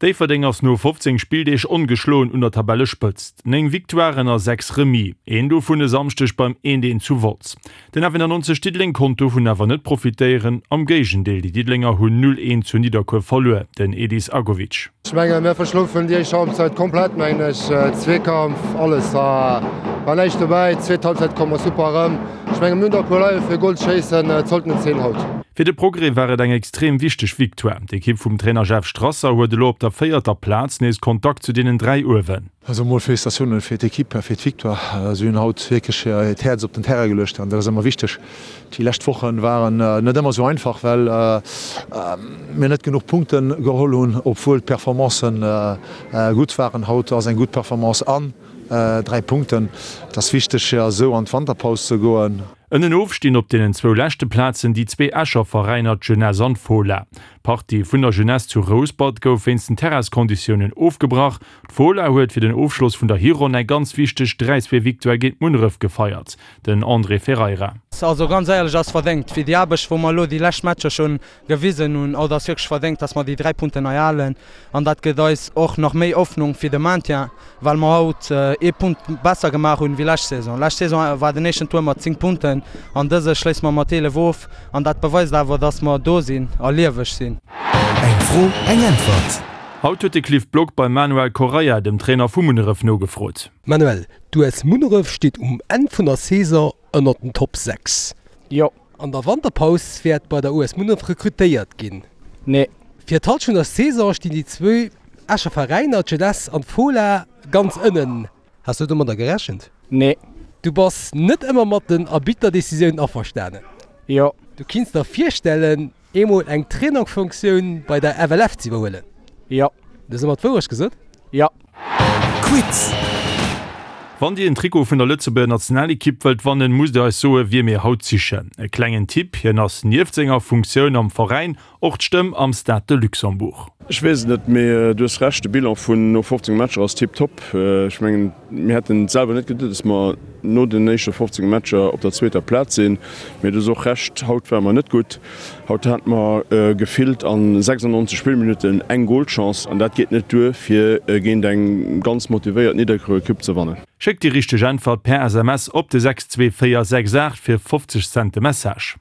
Déifferdeng ass no 15 Spilldeeg ongeschloen un der Tabellespëtzt. 9 Victoiren a 6 Remis, een dovun e Samschdeg beim 1, 1 zu Wolz. Den F91 Diddeleng konnt dovun awer net profitéieren, am Géigendeel, déi Diddelenger hunn 0, 1 zu Nidderkuer verluer, den Edis Agovic. Ech mengen, mir verschlofen déi éischt Halbzeit komplett, mengen ech. Zweekampf, alles war näischt dobäi. Zweet Halbzeit komme mer super erëm. Ech mengen, mir hunn der e puer Leit fir Goal ze schéissen. Et sollten et sinn haut. Fir de Progrès war et eng extrem wichteg Victoire. D'Ekipp vum Trainer Jeff Strasser huet elo op der véierter Plaz nees Kontakt zu deenen 3 uewen. Also mol Félicitatiounen fir d'Ekipp a fir d'Victoire. Si hunn haut wierklech hiert Häerz op den Terrain geluecht an dat ass ëmmer wichteg. Déi lescht Woche waren net ëmmer esou einfach, well mir net genuch Punkte geholl hunn, obwuel d'Performancen gutt waren. Haut ass eng gutt Performance an 3 Punkten. Et ass wichteg fir esou an d'Wanterpaus ze goen. Ënnenof stinn op deenen zwou leschte Plazen déi zwee Escher Veräiner, d'Jeunesse an d'Fola. D'Partie vun der Jeunesse zu Rouspert gouf wéinst den Terrainsconditiounen ofgebrach. D'Fola huet fir den Ofschloss vun der Hironn eng ganz wichteg 3, 2 Victoire géint Munneref gefeiert. Den André Ferreira. Also ganz éierlech ass verdéngt fir déi Aarbecht wou mer elo déi lescht Matcher schonn gewisen hunn. Haut ass wierklech verdéngt, dass mer déi 3 Punkten hei halen an dat gëtt eis och nach méi Hoffnung fir de Maintien, well mer haut ee Punkt besser gemaach hunn wéi lescht Saison. Lescht Saison war den éischten Tour mat 10 Punkten an dëse schléisse mer mat 11 of an dat beweist awer, dass mer do sinn a lieweg sinn. Eng Fro, eng Äntwert. Haut huet de Cliff Block beim Manuel Correia, dem Trainer vu Munneref, nogefrot. Manuel, d'US Munneref steet um Enn vun der Saison ënnert den Top 6. Jo. An der Wanterpaus wäert bei der US Munneref rekrutéiert ginn. Nee. Fir d'Hallschent der Saison stinn déi zwou Escher Veräiner, d'Jeunesse an d'Fola, ganz ënnen. Has du domadder gerechent? Nee. Du bass net ëmmer mat den Arbitterdecisiounen averstanen? Jo. Du kinns der virstellen, eemol eng Trainerfunktioun bei der FLF ze iwwerhuelen? Jo. Du hues ëmmer d'Wourecht gesot? Jo. Quiz! Wann Dir en Trikot vun der Lëtzebuerger Nationalekipp wëllt wannen, musst Dir eis soe wie mir haut sichen. E klengen Tipp, Hien ass nieft senger Funktioun am Veräin och d'Stëmm am Stade de Luxembourg. Ech weess et net, mee du hues Recht, de Bilan vun no 15 Matcher ass tiptop. Ech mengen, mir hätten et selwer net geduet, dass mer no den éischte 15 Matcher op der zweeter Plaz sinn. Mee du hues och Recht, haut ware mer net gutt. Haut hate mer gefillt a 96 Spillminutten eng Golchance an dat geet net duer fir géint eng ganz motivéiert Nidderkuer Ekipp ze wannen. Schéckt déi richteg Äntwert per SMS op de 62468 fir 50 Cent de Message.